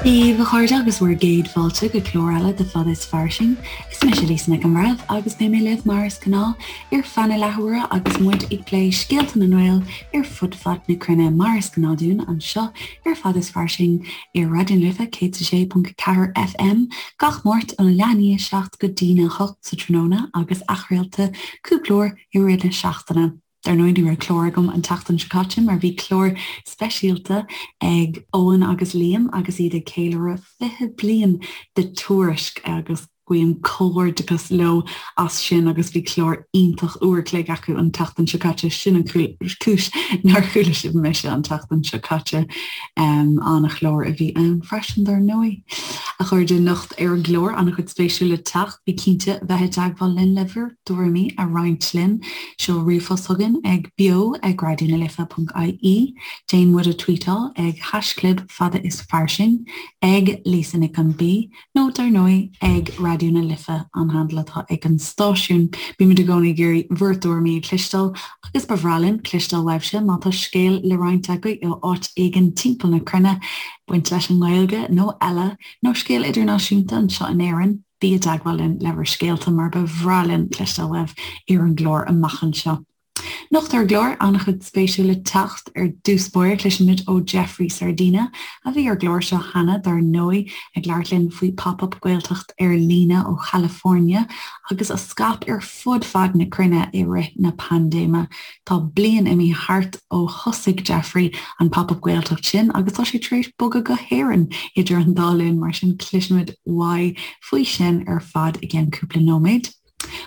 Dia daoibh a chairde agus bhur gcéad fáilte go clár eile de Fada is Fairsing. Is mise Lisa Nic an Bhreithimh agus beidh mé libh mar is gnáth ar feadh na leathuaire agus muid ag plé scéalta na nGael ar fud fad na cruinne mar is gnáth dúinn anseo ar Fada is Fairsing ar Raidió na Life 106.4 FM gach Máirt óna leath i ndiaidh 7 go dtína 8 sa tráthnóna agus athchraolta cúpla uair i rith na seachtaine. Dar ndóigh ní raibh clár agam an tseachtain seo caite mar bhí clár speisialta ag Eoin agus Liam agus iad ag ceiliúradh 20 bliain de Tuairisc agus guím comhghairdeachas leo as sin agus bhí clár iontach uair a chloig acu an tseachtain seo caite, sin an cúis nár chuala sibh mise an tseachtain seo caite. An-chlár a bhí ann freisin dar ndóigh. A chairde, anocht ar an gclár an-chuid spéisiúil le teacht, bí cinnte bheith i dteagmháil linn le bhur dtuairimí a roinnt linn. Seol ríomhphost chugainn ag beo ag raidionalife.ie, déan muid a tweetáil ag haischlib fada is fairsing, ag Lisa Nic an B, nó dar ndóigh ag Raidió na Life an handle atá ag an stáisiún. Bímid i gcónaí ag iarraidh bhur dtuairimí a chloisteáil agus ba bhreá linn cloisteáil uaibhse má tá scéal le roinnt agaibh ó áit éigin timpeall na cruinne, baint leis an nGaeilge nó eile, nó scéal idirnáisiúnta anseo in Éirinn. Bí i dteagmháil linn le bhur scéalta mar ba bhreá linn cloisteáil uaibh ar an gclár amach anseo. Anocht ar an gclár, an-chuid spéisiúil le teacht. Ar dtús báire, cloisfimid ó Jeffrey Sardina, a bhí ar an gclár seo cheana, dar ndóigh, ag labhairt linn faoi Pop Up Gaeltacht ar líne ó Chalifornia agus a scaip ar fud fad na cruinne i rith na paindéime. Tá bliain imithe thart ó thosaigh Jeffrey an Pop Up Gaeltacht sin agus tá sé tar éis bogadh go hÉirinn idir an dá linn, mar sin cloisfimid uaidh faoi sin ar fad i gceann cúpla nóiméad.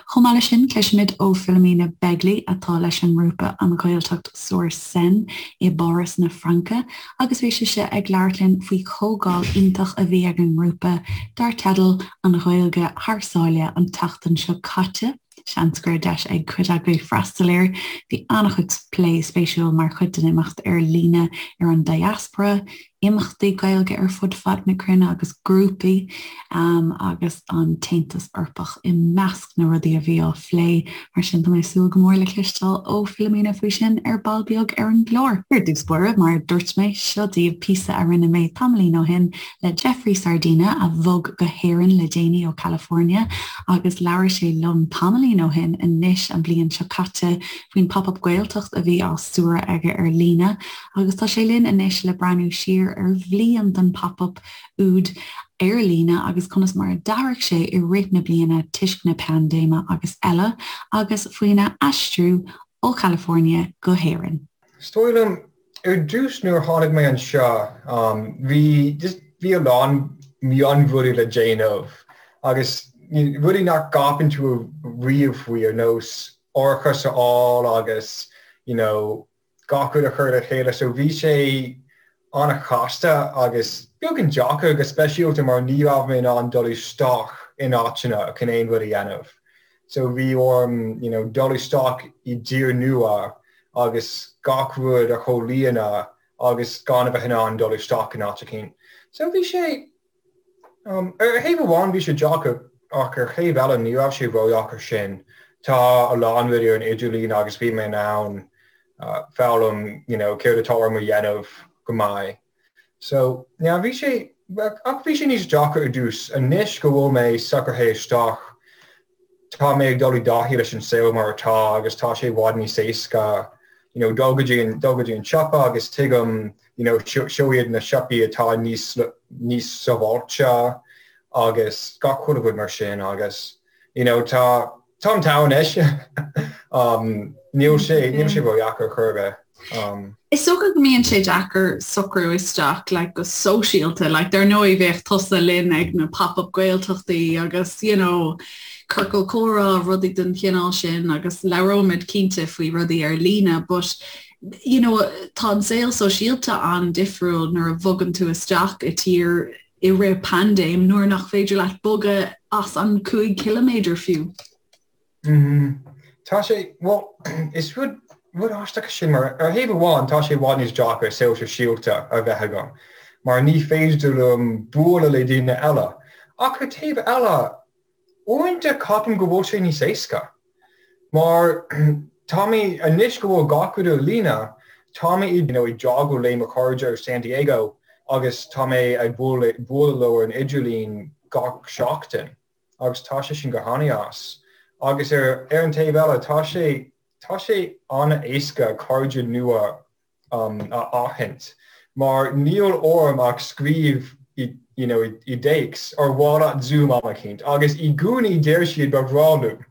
Chomh maith leis sin, cloisfimid ó Philomena Begley, atá leis an ngrúpa An Ghaeltacht sur Seine i bPáras na Fraince, agus bhí sise ag labhairt linn faoi chomhdháil iontach a bhí ag an ngrúpa dar teideal An Ghaeilge Thar Sáile an tseachtain seo caite. Seans go raibh deis ag cuid agaibh freastal air. Bhí an-chuid plé spéisiúil mar chuid den imeacht ar líne ar an diaspora, imeachtaí Gaeilge ar fud fad na cruinne agus grúpaí agus an tAontas Eorpach i measc na rudaí a bhí á phlé. Mar sin tá mé ag súil go mór le cloisteáil ó Philomena faoi sin ar ball beag ar an gclár. Ar dtús báire, mar a dúirt mé, seo daoibh píosa a rinne mé tamaillín ó shin le Jeffrey Sardina a bhog go hÉirinn le déanaí ó California agus labhair sé liom tamaillín ó shin anois an bhliain seo caite faoin Pop Up Gaeltacht a bhí á stiúradh aige ar líne Agus tá sé linn anois le breathnú siar ar bhliain den Pop Up úd ar líne agus conas mar a d'athraigh sé i rith na bliana toisc na paindéime agus eile, agus faoina aistriú ó Chalifornia go hÉirinn. Is dóigh liom, ar dtús nuair a tháinig mé anseo, bhí just bhí a lán mionrudaí le déanamh agus rudaí nach gceapann tú riamh faoi ar nós árachas a fháil agus you know gach rud a chur le chéile so bhí sé an-chasta agus beagán deacair go speisialta mar ní raibh mé in ann dul isteach in áiteanna chun aon rud a dhéanamh so bhí orm you know dul isteach i dtír nua agus gach rud a chomhlíonadh agus gan a bheith in ann dul isteach in áit eicínt. So bhí sé Ar thaobh amháin bhí sé deacair ach ar thaobh eile ní raibh sé ródheacair sin. Tá a lán rudaí ar an idirlíon agus bhí mé in ann foghlaim you know céard atá orm a dhéanamh go maith. So yeah bhí sé ach bhí sé níos deacra ar dtús. Anois go bhfuil mé socraithe isteach tá mé ag dul i dtaithí leis an saol mar atá agus tá sé i bhfad níos éasca you know dul go dtí an dul go dtí an siopa agus tuigim you know seo iad na siopaí atá níos níos sábháilte agus gach chuile rud mar sin agus you know tá táim togha anois um níl sé níl sé ródheacair chor ar bith. Um. Is dócha go mbíonn sé deacair socrú isteach like, go sóisialta, like, dar ndóigh bheadh tusa linn ag na pop-up Gaeltachtaí agus you know, ciorcal comhrá, rudaí den chineál sin agus labhróimid cinnte faoi rudaí ar líne, but you know, tá an saol sóisialta an-difriúil nuair a bhogann tú isteach i tír i rith paindéim nuair nach féidir leat bogadh as an 5 ciliméadar fiú. Tá sé, bhuel, is rud, rud aisteach é sin mar ar thaobh amháin tá sé i bhfad níos deacra saol sóisialta a bheith agam mar ní féidir liom bualadh le daoine eile ach ar taobh eile uaireanta ceapaim go bhfuil sé níos éasca mar tá mé, anois go bhfuil gach rud ar líne, tá mé you know ag teagmháil le mo chairde ar San Diego. agus tá mé ag bualadh leo ar an idirlíon gach seachtain agus tá sé sin go han-deas. Agus ar ar an taobh eile tá sé tá sé an-éasca cairde nua a aithint mar níl orm ach scríobh i you know i dtéacs ar mhaith leat Zoom am eicínt agus i gcónaí deir siad ba bhreá liom.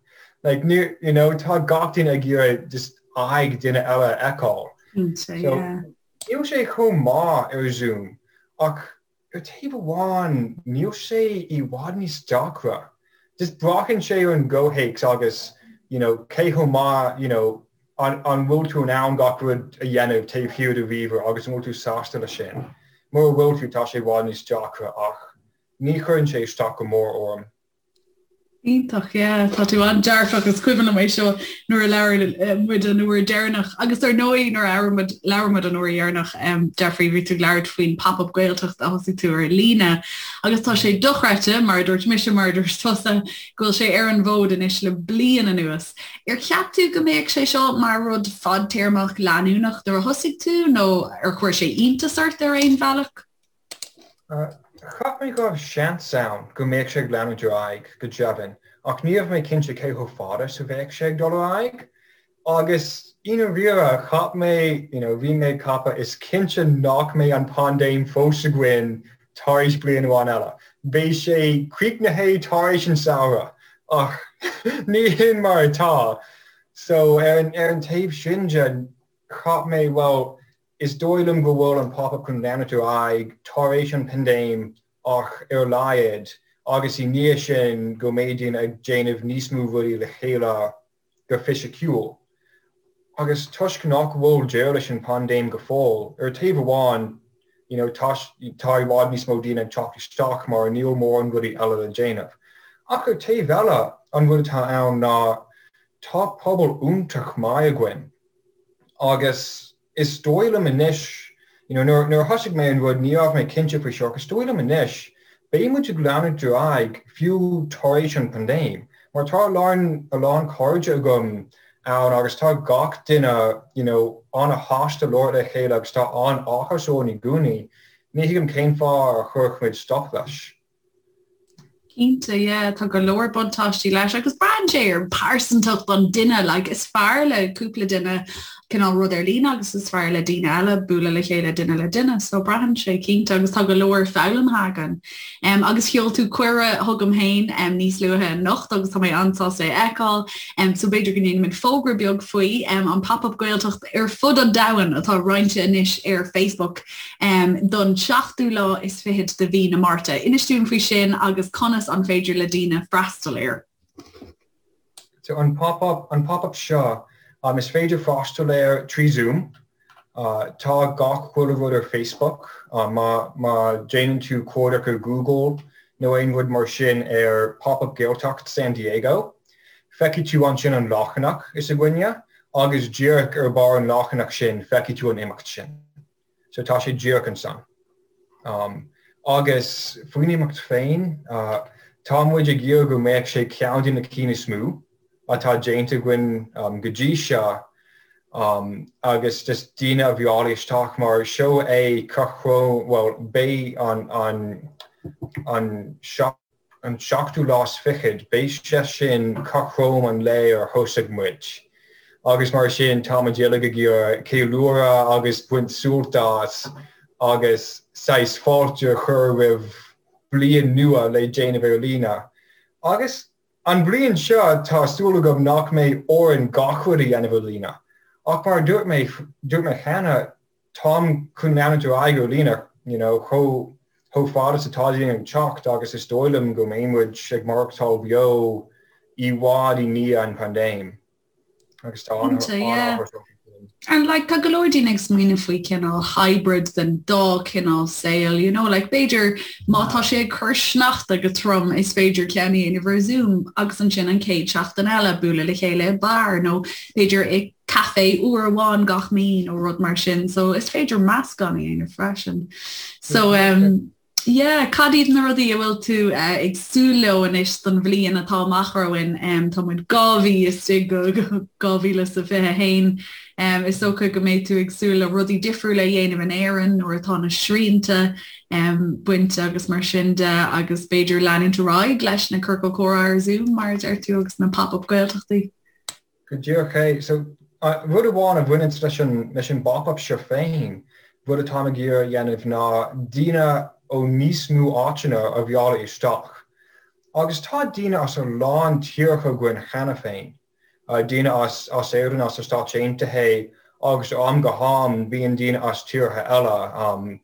Like ní you know tá gach duine ag iarraidh just aghaidh duine eile a fheiceáil. Cinnte, So yeah. níl sé chomh maith ar Zoom ach Ar taobh amháin, níl sé i bhfad níos deacra. Just braitheann sé ar an gcomhthéacs agus you know cé chomh maith you know an an bhfuil tú in ann gach rud a dhéanamh taobh thiar de ríomhaire agus an bhfuil tú sásta leis sin. Mura bhfuil tú, tá sé i bhfad níos deacra ach ní chuireann sé isteach go mór orm. Iontach, yeah, tá tú an-dearfach, is cuimhin liom é seo nuair a labhair muid an uair deireanach agus ar ndóigh nuair a labhair muid labhair muid an uair dheireanach, Jeffrey, bhí tú ag labhairt faoin Pop-Up Gaeltacht a thosaigh tú ar líne agus tá sé dochreidte, mar a dúirt mise, mar a dúirt tusa, go bhfuil sé ar an bhfód anois le bliain anuas. Ar cheap tú go mbeadh sé seo mar rud fadtéarmach leanúnach nuair a thosaigh tú nó ar chuir sé iontas ort ar aon bhealach? Cheap mé go raibh seans ann go mbeadh sé ag leanúint ar aghaidh, go deimhin, ach ní raibh mé cinnte cé chomh fada is a bheadh sé ag dul ar aghaidh. Agus i ndáiríre, cheap mé, you know, bhí mé ag ceapadh, is cinnte nach mbeidh an paindéim fós againn tar éis bliain amháin eile. Beidh sé críochnaithe tar éis an samhradh. Ach ní hin mar atá. So ar an, ar an taobh sin de, cheap mé, bhuel, Is dóigh liom go bhfuil an Pop-Up chun leanúint ar aghaidh tar éis an paindéim ach ar a laghad agus i ndiaidh sin go mbeidh daoine ag déanamh níos mó rudaí le chéile go fisiciúil. Agus toisc nach bhfuil deireadh leis an paindéim go fóill, ar taobh amháin you know tá tá i bhfad níos mó daoine ag teacht isteach mar níl mórán rudaí eile le déanamh. Ach ar taobh eile an rud atá ann ná tá pobal iontach maith againn agus Is dóigh liom anois, you know, nuair, nuair a thosaigh mé an rud ní raibh mé cinnte faoi seo ach is dóigh liom anois, beidh muid ag leanúint ar aghaidh fiú tar éis an paindéim, mar tá a lán, a lán cairde agam ann agus tá gach duine, you know, an-shásta labhairt le chéile agus tá an-áthas orainn i gcónaí. Ní thuigim cén fáth a chuirfeadh muid stop leis. Cinnte, yeah, tá go leor buntáistí leis agus braitheann sé ar pearsantacht an duine, like is fearr le cúpla duine cineál rud ar líne agus is fearr le daoine eile bualadh le chéile duine le duine, so braitheann sé cinnte agus tá go leor foghlamtha againn. Um, agus sheol tú cuireadh chugam féin um, níos luaithe anocht agus tá mé an-sásta é a fheiceáil, um, so b'fhéidir go ndéanfaimid fógra beag faoi um, an Pop-Up Gaeltacht ar fud an domhain atá roinnte anois ar Facebook. don seachtú lá is fichead de mhí na Márta. Inis dúinn faoi sin agus conas an féidir le daoine freastal air. So an pop-up, an pop-up seo, um, is féidir freastal air trí Zoom. Uh, tá gach chuile rud ar Facebook. Uh, má, má déanann tú cuardach ar Google nó aon rud mar sin ar Pop-up Gaeltacht San Diego, feicfidh tú ansin an leathanach is againne agus díreach ar barr an leathanach sin feicfidh tú an imeacht sin. So tá sé díreach ansan. Um, agus faoin imeacht féin, uh, tá muid ag iarraidh go mbeadh sé ceann de na cinn is mó atá déanta againn um, go dtí seo um, agus just daoine a mhealladh isteach mar seo é cothrom, well, beidh an, an, an An seachtú lá is fichead, beidh sé sin cothrom an lae ar thosaigh muid. Agus mar sin, tá muid uilig ag iarraidh ceiliúradh agus baint sult as agus saghas fáilte a chur roimh bliain nua le déanamh ar líne. Agus an bhliain seo, tá súil agam nach mbeidh orainn gach rud a dhéanamh ar líne. Ach mar a dúirt mé, dúirt mé cheana, Táim chun leanúint ar aghaidh ar líne, you know, chomh chomh fada is atá daoine ag teacht agus is dóigh liom go mbeidh muid ag maireachtáil beo i bhfad i ndiaidh an phaindéim agus tá Cinnte, yeah. an-áthas orm faoi sin. And like tá go leor daoine ag smaoineamh faoi cineál hybrid den dá cineál saoil, you know, like b'fhéidir má tá sé ag cur sneachta go trom is féidir ceann a dhéanamh ar Zoom agus ansin an chéad seachtain eile bualadh le chéile i beár nó b'fhéidir i caife uair amháin gach mí nó rud mar sin so is féidir meascán a dhéanamh freisin. So um, Yeah, cad iad na rudaí a bhfuil tú ag súil leo anois don bhliain atá amach romhainn? Tá muid 2 mhí istigh go 2021. Is dócha go mbeidh tú ag súil le rudaí difriúla a dhéanamh in Éirinn nuair atá na srianta bainte agus mar sin de agus b'fhéidir leanúint ar aghaidh leis na ciorcail comhrá ar Zoom mar a deir tú agus na pop-up Gaeltachtaí. Go díreach é. So, rud amháin a bhaineanns leis an, leis an bpop-up seo féin, rud atáim ag iarraidh a dhéanamh ná daoine ó níos mó áiteanna a mhealladh isteach. Agus tá daoine as a lán tíortha againn cheana féin, daoine as, as Éirinn, as na Stáit Aontaithe agus ó am go ham bíonn daoine as tíortha eile,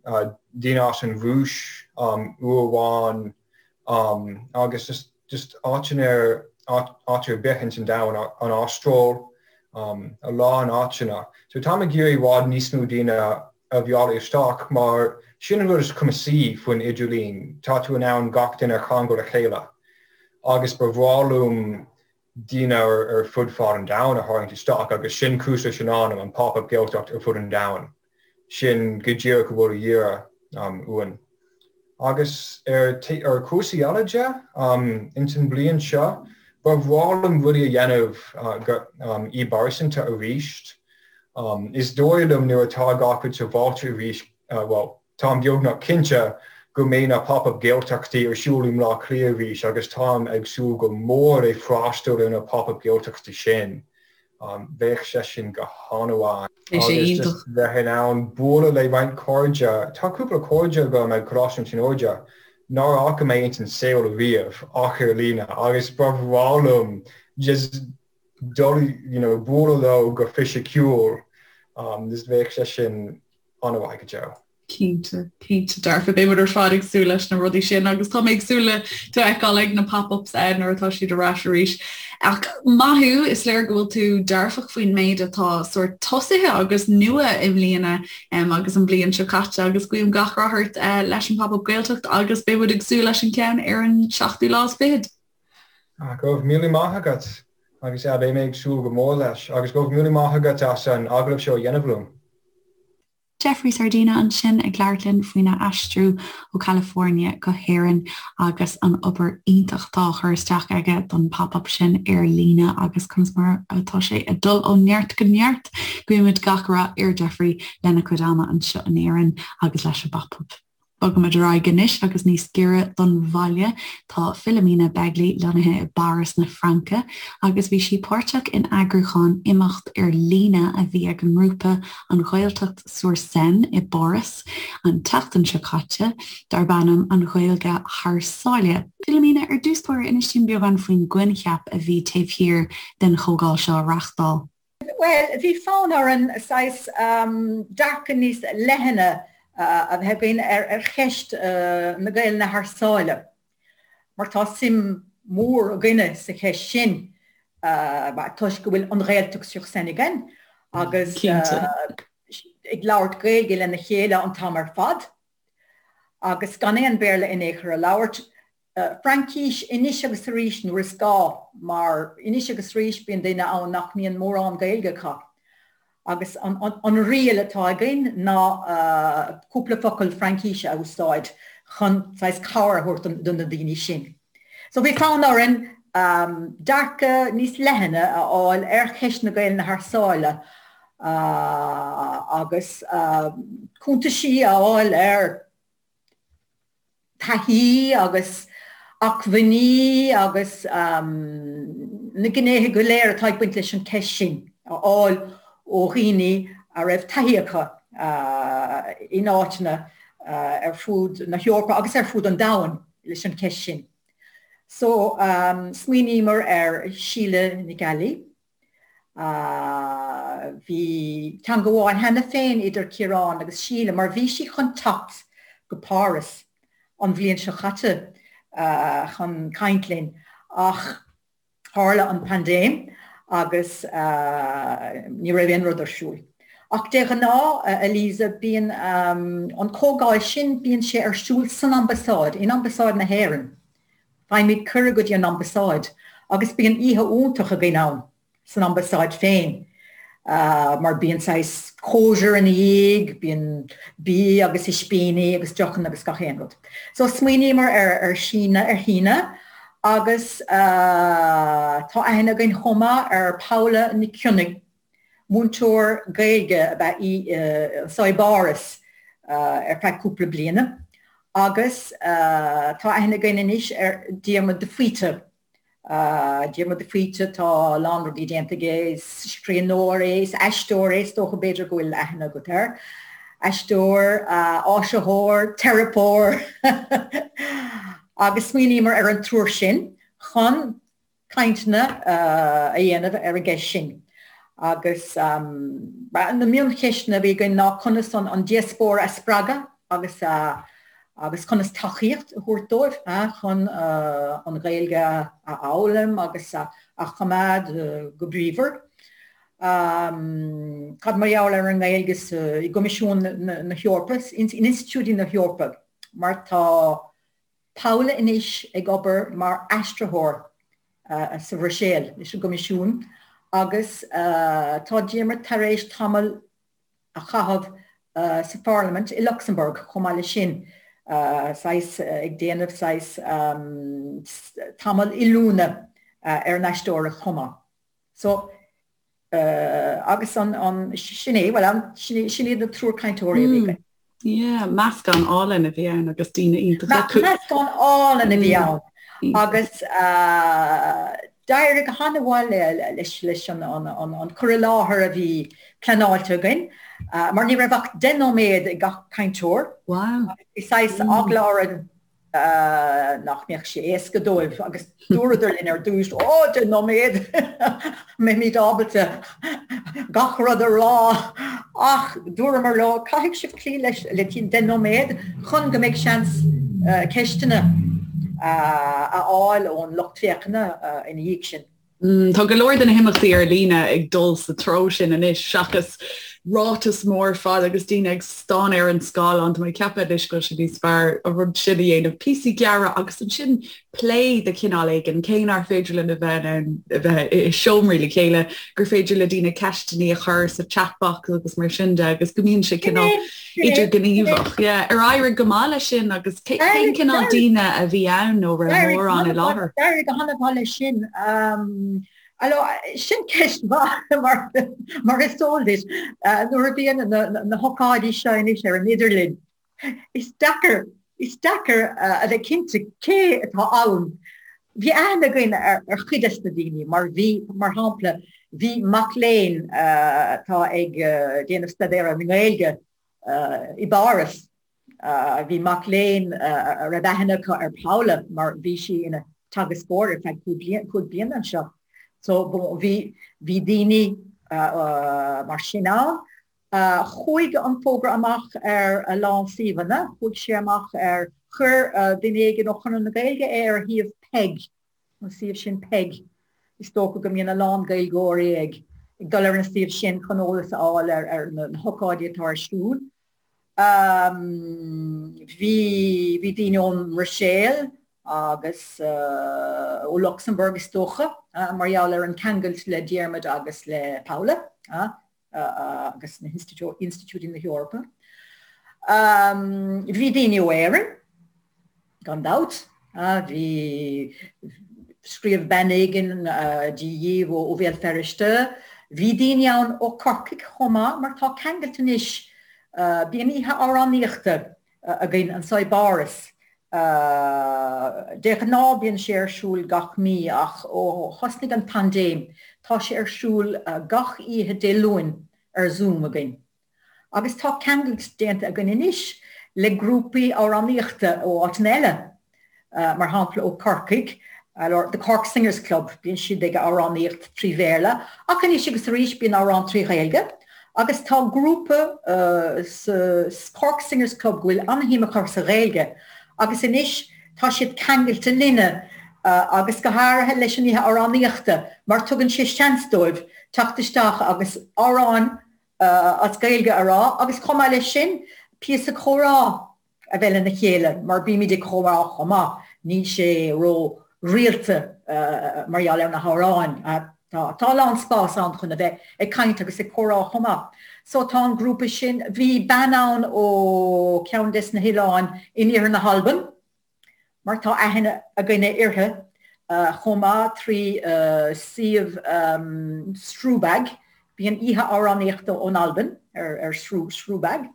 daoine as an Rúis uair amháin agus just, just áiteanna ar, áit ar bith ins an domhan, an Astráil, a lán áiteanna. So táim ag iarraidh i bhfad níos mó daoine a mhealladh isteach mar sin an rud is cumasaí faoin idirlíon, tá tú in ann gach duine a cheangal le chéile agus ba bhreá liom daoine ar fud fad an domhain a tharraingt isteach agus sin cúis leis an ainm, an Pop-Up Gaeltacht ar fud an domhain. Sin go díreach a bhfuil a dhíth uainn. Agus ar ar chúrsaí eile de, ins an bhliain seo, ba bhreá liom rudaí a dhéanamh i bpearsanta arís. Is dóigh liom nuair atá gach rud sábháilte arís, bhuel, Táim beagnach cinnte go mbeidh na Pop-Up Gaeltachtaí ar siúl i mBleá Cliath arís agus táim ag súil go mór le freastal ar na Pop-Up Gaeltachtaí sin. Bheadh sé sin go han-mhaith. Beidh sé Agus iontach. just bheith in ann bualadh le roinnt cairde. Tá cúpla cairde agam ag Coláiste na Tríonóide nár fhaca mé ins an saol riamh ach ar líne agus ba bhreá liom just dul, you know, bualadh leo go fisiciúil. Just bheadh sé sin an-mhaith go deo. Cinnte, cinnte dearfa. Beidh muid ar fad ag súil leis na rudaí sin agus tá mé ag súil le tú a fheiceáil ag na pop-ups eh, nuair atá siad ar ais arís. Ach maith thú, is léir go bhfuil tú dearfach faoin méid atá sórt tosaithe agus nua i mbliana um, agus an bhliain seo caite agus guím gach rath ort uh, leis an Pop-up Gaeltacht agus beidh muid ag súil leis an ceann ar an seachtú lá is fichead. Ah, go raibh míle maith agat agus yeah, beidh mé ag súil go mór leis agus go raibh míle maith agat as an agallamh seo a dhéanamh liom. Jeffrey Sardina ansin ag labhairt linn faoina aistriú ó California go hÉirinn agus an obair iontach atá á chur isteach aige don pop-up sin ar líne agus conas mar atá sé ag dul ó neart go neart. Guímid gach rath ar Jeffrey lena chuid ama anseo in Éirinn agus leis an bpop-up. Bogaimid ar aghaidh anois agus níos giorra don bhaile. Tá Philomena Begley lonnaithe i bPáras na Fraince agus bhí sí páirteach in eagrúchán imeacht ar líne a bhí ag an ngrúpa An Ghaeltacht sur Seine i bPáras an tseachtain seo caite, darb ainm An Ghaeilge Thar Sáile. Philomena, ar dtús báire, inis dúinn beagán faoin gcoincheap a bhí taobh thiar den chomhdháil seo a reáchtáil. Bhuel, bhí fonn orainn saghas dearcadh níos leithne a bheith againn ar cheist na Gaelainne thar sáile, mar tá suim mhór againne sa cheist sin toisc go bhfuil an Ghaeltacht sur Seine againn agus ag labhairt Gaeilge lena chéile an t-am ar fad agus gan aon Bhéarla in aon chor a labhairt. Fraincis anois agus arís nuair is gá, mar anois agus arís bíonn duine ann nach mbíonn mórán Gaeilge acu. Agus an riail atá againn ná cúpla focal Fraincise a úsáid chun saghas cabhair a thabhairt do na daoine sin. So bhí fonn orainn dearcadh níos leithne a fháil ar cheist na Gaelainne thar sáile agus cuntaisí a fháil ar taithí agus acmhainní agus na gnéithe go léir atá ag baint leis an cheist sin a fháil ó dhaoine a raibh taithí acu in áiteanna ar fud na hEorpa agus ar fud an domhain leis an cheist sin. So, smaoiníomar ar Síle Nic Ailí. Bhí teangabháil cheana féin idir Ciarán agus Síle mar bhí sí chun teacht go Páras an bhliain seo caite chun caint linn ach tharla an paindéim agus ní raibh aon rud ar siúl. Ach de ghnáth, a Lisa, bíonn an comhdháil sin, bíonn sé ar siúl san ambasáid, in ambasáid na hÉireann. Faighimid cuireadh go dtí an ambasáid agus bíonn oíche iontach againn ann san ambasáid féin. Mar bíonn saghas cóisir ina dhiaidh, bíonn bia agus ispíní agus deochanna agus gach aon rud. So smaoiníomar ar Síne, ar Shíne agus tá aithne againn chomh maith ar Paula Nic Cionnaith, múinteoir Gaeilge ab ea í anso i bPáras ar feadh cúpla bliana agus tá aithne againn anois ar Diarmuid de Faoite. Diarmuid de Faoite, tá a lán rudaí déanta aige, is scríbhneoir é, is aisteoir é, is dócha b'fhéidir go bhfuil aithne agat air. Aisteoir, áisitheoir, teiripeoir agus smaoiníomar ar an triúr sin chun cainteanna a dhéanamh ar an gceist sin. Agus na mioncheisteanna a bhí againn ná conas an diaspóra a spreagadh agus a agus conas tacaíocht a thabhairt dóibh chun an Ghaeilge a fhoghlaim agus a choimeád go bríomhar. Cad mar gheall ar an nGaeilge i gCoimisiún na hEorpa, in institiúidí na hEorpa, mar tá Paula anois ag obair mar aistritheoir sa Bhruiséil leis an gCoimisiún agus tá Diarmuid tar éis tamall a chaitheamh sa Pharlaimint i Lucsamburg chomh maith leis sin, saghas ag déanamh saghas tamall oiliúna ar an aisteoireacht chomh maith. So, agus an, an, sin é, bhuel, an, sin iad na triúr cainteoirí a bhí againn. Yeah, meascán álainn a bhí ann agus daoine iontacha. Meascán álainn a bhí ann agus d'éirigh go han-mhaith leis an cur i láthair a bhí pleanáilte againn mar ní raibh ach 10 nóiméad ag gach cainteoir. Wow. Bhí saghas eagla orainn nach mbeadh sé éasca dóibh agus dúradar linn ar dtús, Ó, 10 nóiméad! Mbeimid ábalta gach rud a rá! Ach dúramar leo, caithfidh sibh cloí leis le 10 nóiméad chun go mbeidh seans ceisteanna a fháil ón lucht féachana ina dhiaidh sin. Tá go leor de na himeachtaí ar líne ag dul sa treo sin anois seachas ráiteas mór fada agus daoine ag stánadh ar an scáileán. Tá mé ag ceapadh anois go bhfuil sé níos fearr an rud sin a dhéanamh, píosaí gearra agus ansin plé de chineál éigin, cé nár féidir linn a bheith in ann a bheith i seomraí le chéile, gur féidir le daoine ceisteanna a chur sa chat box agus mar sin de agus go mbíonn sé cineál idirghníomhach. Yeah. Ar éirigh go maith leis sin agus cén cineál daoine a bhí ann nó raibh mórán i láthair? D'éirigh go han-mhaith leis sin. Alors, sin ceist mhaith mar, mar is eol duit, nuair a bhíonn na, na hócáidí seo anois ar an idirlíon, is deacair, is deacair a bheith cinnte cé atá ann. Bhí aithne againn ar chuid des na daoine mar bhí, mar shampla, bhí mac léinn atá ag déanamh staidéar ar an nGaeilge i bPáras. Bhí mac léinn a raibh aithne acu ar Paula mar bhí sí ina teagascóir ar feadh 5 bliana anseo. So bhí bhí daoine mar sin ann. Chuaigh an fógra amach ar a lán suíomhanna, chuaigh sé amach ar, chuir duine éigin ó Chonradh na Gaeilge é ar shuíomh Peig, an suíomh sin Peig. Is dócha go mbíonn a lán Gaeilgeoirí ag dul ar an suíomh sin chun eolas a fháil ar na hócáidí atá ar siúl. Bhí bhí daoine ón mBruiséil agus ó Lucsamburg is dócha, mar gheall ar an ceangailt le Diarmuid agus le Paula. agus na hinstitiúidí na hEorpa. Bhí daoine ó Éirinn, gan dabht. Bhí, scríobh bean éigin Dia dhíbh ó Bhéal Feirste. Bhí daoine ann ó Corcaigh chomh maith mar tá ceangailt anois, bíonn oíche amhránaíochta againn anso i bPáras. De ghnáth bíonn sé ar siúl gach mí ach ó thosnaigh an paindéim tá sé ar siúl gach oíche Dé Luain ar Zoom againn. Agus tá ceangailt déanta againn anois le grúpaí amhránaíochta ó áiteanna eile, mar shampla ó Corcaigh, The Cork Singers Club, bíonn siad ag amhránaíocht trí Bhéarla ach anois agus arís bíonn amhrán trí Ghaeilge agus tá grúpa sa Cork Singers Club go bhfuil an-shuim acu sa Ghaeilge agus anois tá siad ceangailte linne agus go háirithe leis an oíche amhránaíochta mar tugann sé seans dóibh teacht isteach agus amhráin as Gaeilge a rá agus chomh maith leis sin píosa comhrá a bheith lena chéile mar bímid ag comhrá chomh maith, níl sé ró rialta mar gheall ar na hamhráin. Tá, tá a lán spás ann chun a bheith ag caint agus ag comhrá chomh maith. So tá an grúpa sin, bhí bean ann ó ceann des na hoileáin in iarthar na hAlban, mar tá aithne againne uirthi chomh maith trí suíomh Srùbag, bíonn oíche amhránaíochta ón Albain ar Srùbag.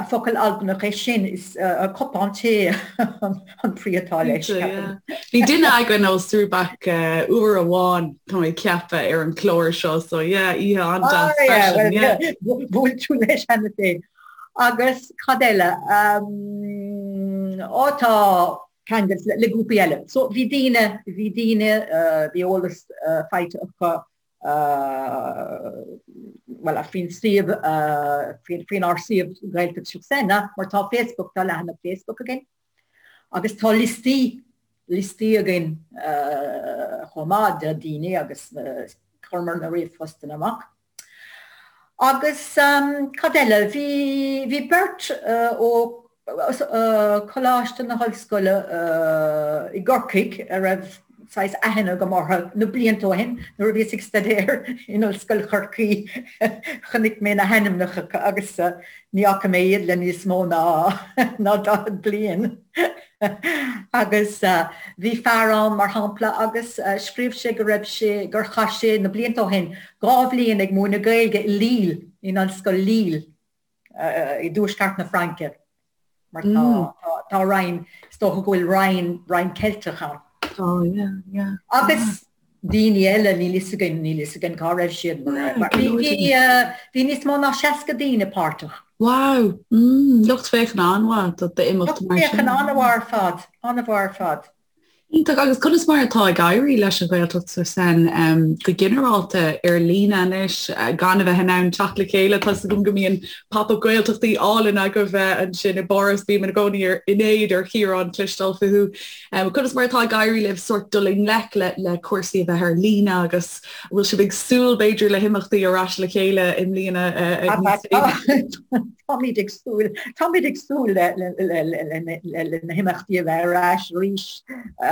Focal Albanach é sin, is cupán tae an brí atá leis, ceapaim. Bhí duine againn ó Srùbag uair amháin, tá mé ag ceapadh, ar an chlár seo, so yeah, oíche an-deas freisin, yeah. Bhuail tú leis cheana féin. Agus cad eile? Á tá ceangal le grúpaí eile. So bhí daoine, bhí daoine, bhí eolas faighte acu bhuel, faoin suíomh, faoinár suíomh Gaeltacht sur Seine, mar tá Facebook, tá leathanach Facebook againn agus tá liostaí, liostaí againn chomh maith de daoine agus chuireamar na ríomhphostanna amach. Agus cad eile? Bhí, bhí beirt ó Choláiste na hOllscoile i gCorcaigh a raibh saghas aithne agam orthu na blianta ó shin nuair a bhíos ag staidéar in Ollscoil Chorcaí chonaic mé na hainmneacha agus ní fhaca mé iad le níos mó ná ná 40 bliain agus bhí fear ann mar shampla agus scríobh sé go raibh sé gur chaith sé na blianta ó shin 2 bhliain ag múineadh Gaeilge i Lille in Ollscoil Lille. i dtuaisceart na Fraince mar tá tá roinn, is dócha go bhfuil roinn, roinn Ceilteach ann. Tá, yeah, yeah. Agus daoine eile, níl fhios againn, níl fhios againn cá raibh siad mar bhí, bhí, bhí níos mó ná 60 daoine páirteach. Wow, mm, lucht féachana an-mhaith do d'imeacht mar sin. Lucht féachana an-mhaith ar fad, an-mhaith ar fad. Iontach. Agus conas mar atá ag éirí leis an Ghaeltacht sur Seine go ginearálta ar líne anois, gan a bheith in ann teacht le chéile? Tá 's agam go mbíonn pop-up Gaeltachtaí álainn agaibh ansin i bPáras, bím i gcónaí in éad ar Chiarán cloisteáil fúthu. Conas mar atá ag éirí libh sórt dul i ngleic le cúrsaí a bheith ar líne agus an bhfuil sibh ag súil b'fhéidir le himeachtaí ar ais le chéile i mbliana níos déanaí? Táimid ag súil, táimid ag súil le na himeachtaí a bheith ar ais arís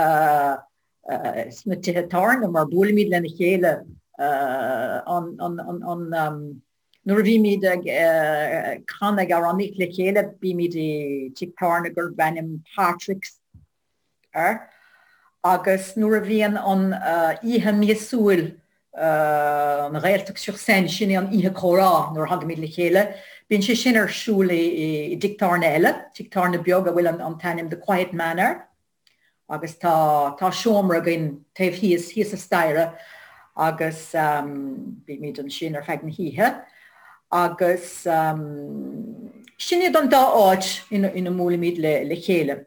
sna tithe tábhairne mar buailimid lena chéile an nuair a bhímid ag canadh ag amhránaíocht le chéile bímid i tigh tábhairne gurb ainm Patrick's air agus nuair a bhíonn an oíche míosúil an Ghaeltacht sur Seine, sin é an oíche comhrá nuair a thagaimid le chéile, bíonn sé sin ar siúl i dtigh tábhairne eile, tigh tábhairne beag a bhfuil an t-ainm The Quiet Man air agus tá tá seomra againn taobh thíos, thíos an staighre agus bímid ansin ar feadh na hoíche agus sin iad an dá áit ina mbuailimid le chéile.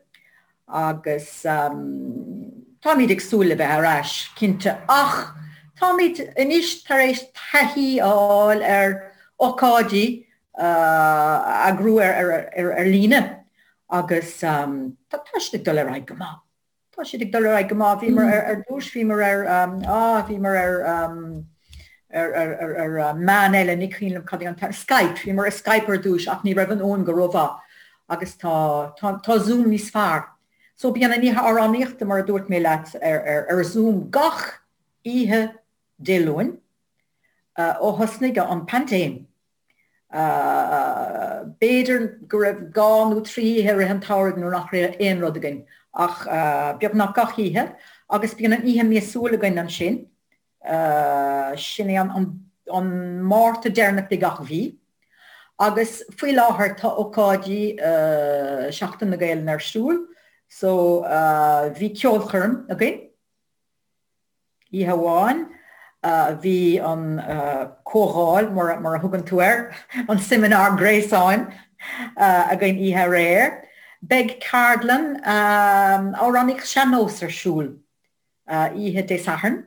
Agus táimid ag súil le bheith ar ais, cinnte, ach táimid anois tar éis taithí a fháil ar ócáidí a eagrú ar líne agus tá siad ag dul ar aghaidh go maith. Tá siad ag dul ar aghaidh go maith. Bhíomar ar dtús, bhíomar ar, á, bhíomar ar, ar, ar, ar, ar meán eile, ní cuimhin liom cad é an t-ainm, Skype, bhíomar ar Skype ar dtús ach ní raibh an fhuaim go rómhaith agus tá, tá, tá Zoom níos fearr. So bíonn an oíche amhránaíochta, mar a dúirt mé leat, ar, ar, ar Zoom gach oíche Dé Luain ó thosnaigh an paindéim. B'fhéidir go raibh 2 nó 3 oíche i rith an tsamhraidh nuair nach raibh aon rud againn ach beagnach gach oíche agus bíonn an oíche míosúil againn ansin, sin é an Márta deireanach de gach mhí. Agus faoi láthair tá ócáidí Seachtain na Gaelainne ar siúl so bhí ceolchoirm againn. Oíche amháin bhí an comhdháil, mar a thugann tú air, an seimineár gréasáin againn oíche aréir. Beidh ceardlann amhránaíocht sean-nós ar siúl oíche Dé Sathairn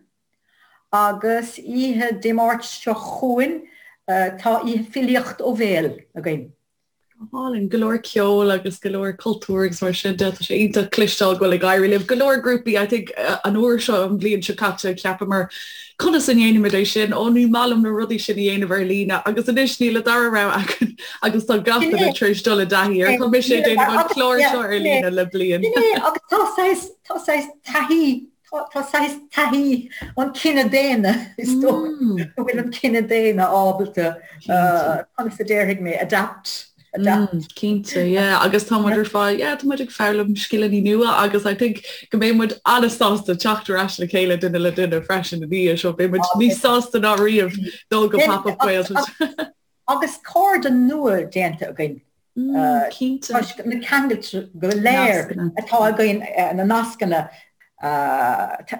agus oíche Dé Máirt seo chugainn tá oíche filíocht ó bhéal againn. Go hálainn. Go leor ceoil agus go leor cultúr agus mar sin de. Tá sé iontach cloisteáil go bhfuil ag éirí libh. Go leor grúpaí, I think an uair seo, an bhliain seo caite, cheapamar conas a ndéanaimid é sin? Ó ní maith liom na rudaí sin a dhéanamh ar líne agus anois níl an dara rogha againn agus tá gach duine tar éis dul i dtaithí air. Tá mise ag déanamh an clár seo ar líne le bliain. Sin é agus tá saghas, tá saghas taithí. Tá saghas taithí an cine daonna, is dóigh go bhfuil an cine daonna ábalta, conas a déarfaidh mé, adapt. Adapt. Cinnte, yeah, agus tá muid ar fad, yeah, tá muid ag foghlaim scileanna nua agus I think go mbeidh muid an-sásta teacht ar ais le chéile duine le duine freisin ina dhiaidh seo, beidh muid níos sásta ná riamh dul go Pop-Up Gaeltacht. Agus cairde nua déanta againn. Cinnte. Toisc na ceangailte go léir atá againn, na nascanna.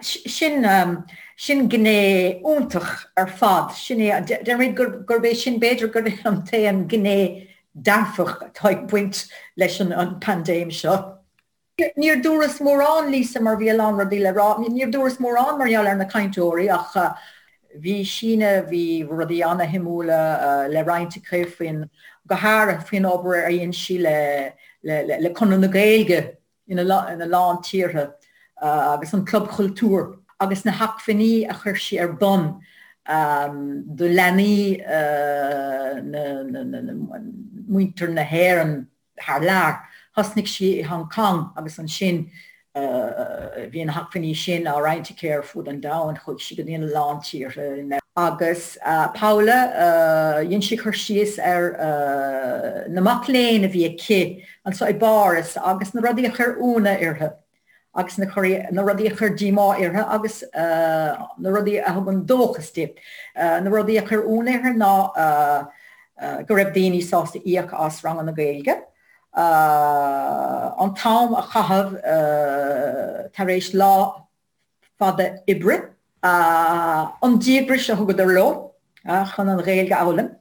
Sin, sin gné iontach ar fad. Sin é, déarfainn gurb é sin, b'fhéidir gurb é an t-aon ghné dearfach atá ag baint leis an bpaindéim seo. Níor dúras mórán, Lisa, mar bhí a lán rudaí le rá. Níor dúras mórán mar gheall ar na cainteoirí ach bhí Síne, bhí rudaí ana-shuimiúla le roinnt aici faoin, go háirithe faoin obair a dhein sí le, le Conradh na Gaeilge ina lán tíortha agus an Club Chultúir agus na hacmhainní a chuir sí ar bun do leanaí na, muintir na hÉireann. thar lear. Thosnaigh sí i Hong Kong agus ansin bhí na hacmhainní sin á roinnt aici ar fud an domhain, chuaigh sí go dtí a lán tíortha. Agus Paula, dhein sí cur síos ar na mac léinn a bhí aici anseo i bPáras agus na rudaí a chuir ionadh uirthi. agus na na rudaí a chuir díomá uirthi agus na rudaí a thugann dóchas di. Na rudaí a chuir ionadh uirthi ná go raibh daoine sásta íoc as ranganna Gaeilge, an t-am a chaitheamh tar éis lá fada oibre, an díograis a thugadar leo chun an Ghaeilge a fhoghlaim,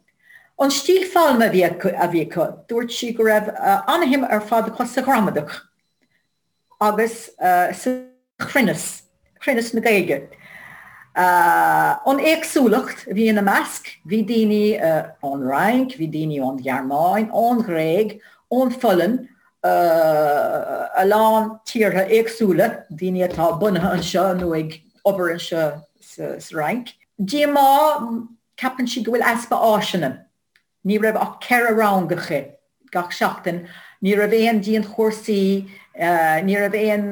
an stíl foghlama a bhí acu. Dúirt sí go raibh an-shuim ar fad acu sa ghramadach. agus sa chruinneas, cruinneas na Gaeilge. An éagsúlacht a bhí ina measc, bhí daoine ón Fhrainc, bhí daoine ón Ghearmáin, ón Ghréig, ón Pholainn, a lán tíortha éagsúla, daoine atá bunaithe anseo nó ag obair anseo sa Fhrainc. Díomá, ceapann sí go bhfuil easpa áiseanna. Ní raibh ach 4 rang aici gach seachtain, ní raibh aon dianchúrsaí, ní raibh aon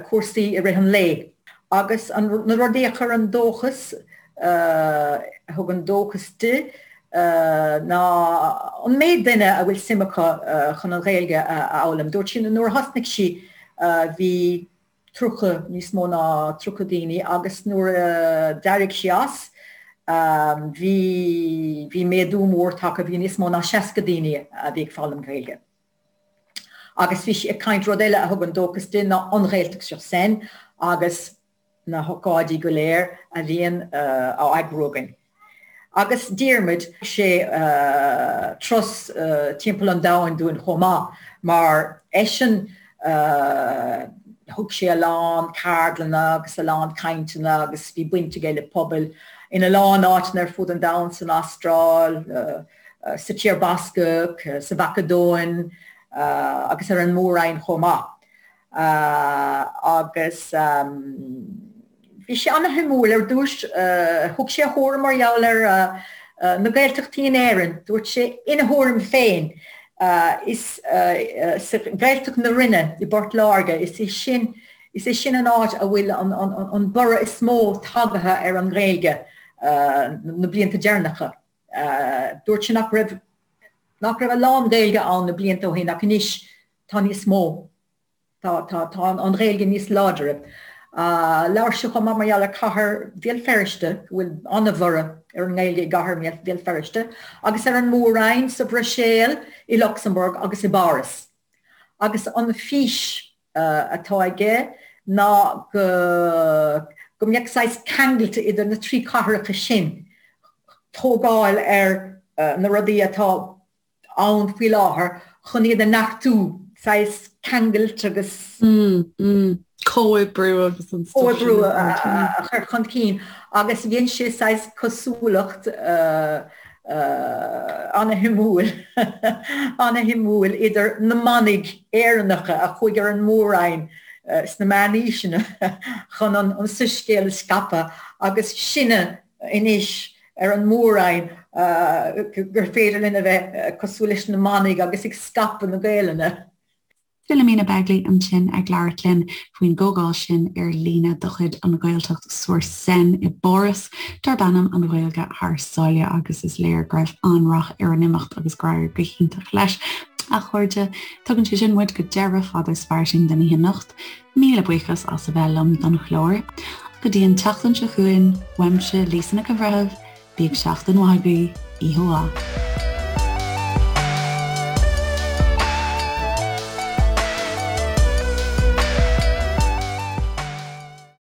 cúrsaí i rith an lae. Agus na rudaí a chuir an dóchas, a thug an dóchas di, ná an méid duine a bhfuil suim acu chun an Ghaeilge a fhoghlaim. Dúirt sí nuair a thosnaigh sí bhí 30, níos mó ná 30 daoine agus nuair a d'éirigh sí as bhí, bhí méadú mór tagtha, bhí níos mó ná 60 daoine a bhí ag foghlaim Gaeilge. Agus bhí sí ag caint, rud eile a thugann dóchas di ná an Ghaeltacht sur Seine agus na hócáidí go léir a bhíonn á eagrú againn. Agus Diarmuid, sé turas timpeall an domhain dúinn chomh maith, mar eisean thug sé a lán ceardlanna agus a lán cainteanna agus bhí baint aige le pobail ina lán áiteanna ar fud an domhain, san Astráil, sa Tír Bascach, sa Mhacadóin agus ar an Mór-Roinn chomh maith. Agus bhí sé ana-shuimiúil ar dtús. Thug sé a thuairim mar gheall ar na Gaeltachtaí in Éirinn. Dúirt sé ina thuairim féin, is sa Ghaeltacht na Rinne i bPort Láirge, is é sin, is é sin an áit a bhfuil an borradh is mó tagaithe ar an nGaeilge na blianta deireanacha. Dúirt sé nach raibh, nach raibh a lán Gaeilge ann na blianta ó shin ach anois tá níos mó. Tá, tá, tá an Ghaeilge níos láidre. Labhair sé chomh maith mar gheall ar cathair Bhéal Feirste, go bhfuil an-bhorradh ar an nGaeilge i gcathair Bhéal Feirste, agus ar an Mór-Roinn, sa Bhruiséil, i Lucsamburg agus i bPáras. Agus an fís atá aige ná go, go mbeadh saghas ceangailte idir na trí cathracha sin, tógáil ar na rudaí atá ann faoi láthair chun iad a neartú, saghas ceangailt agus. Comhoibriú agus an stuif sin. Comhoibriú a chur chun cinn agus dhein sé saghas cosúlacht ana-shuimiúil, ana-shuimiúil idir na manaigh Éireannacha a chuaigh ar an Mór-Roinn sna meánaoiseanna chun an soiscéal a scaipeadh agus sinne anois ar an Mór-Roinn gur féidir linn a bheith cosúil leis na manaigh agus ag scaipeadh na Gaelainne. Philomena Begley ansin ag labhairt linn faoin gcomhdháil sin ar líne de chuid An Ghaeltacht sur Seine i bPáras darb ainm An Ghaeilge Thar Sáile agus is léir go raibh an-rath ar an imeacht agus gur éirigh go hiontach leis. A chairde, tugann sé sin muid go deireadh Fada is Fairsing den oíche anocht. Míle buíochas as a bheith liom don chlár. Go dtí an tseachtain seo chugainn, uaimse Lisa Nic an Bhreithimh, bíodh seachtain mhaith agaibh, oíche mhaith.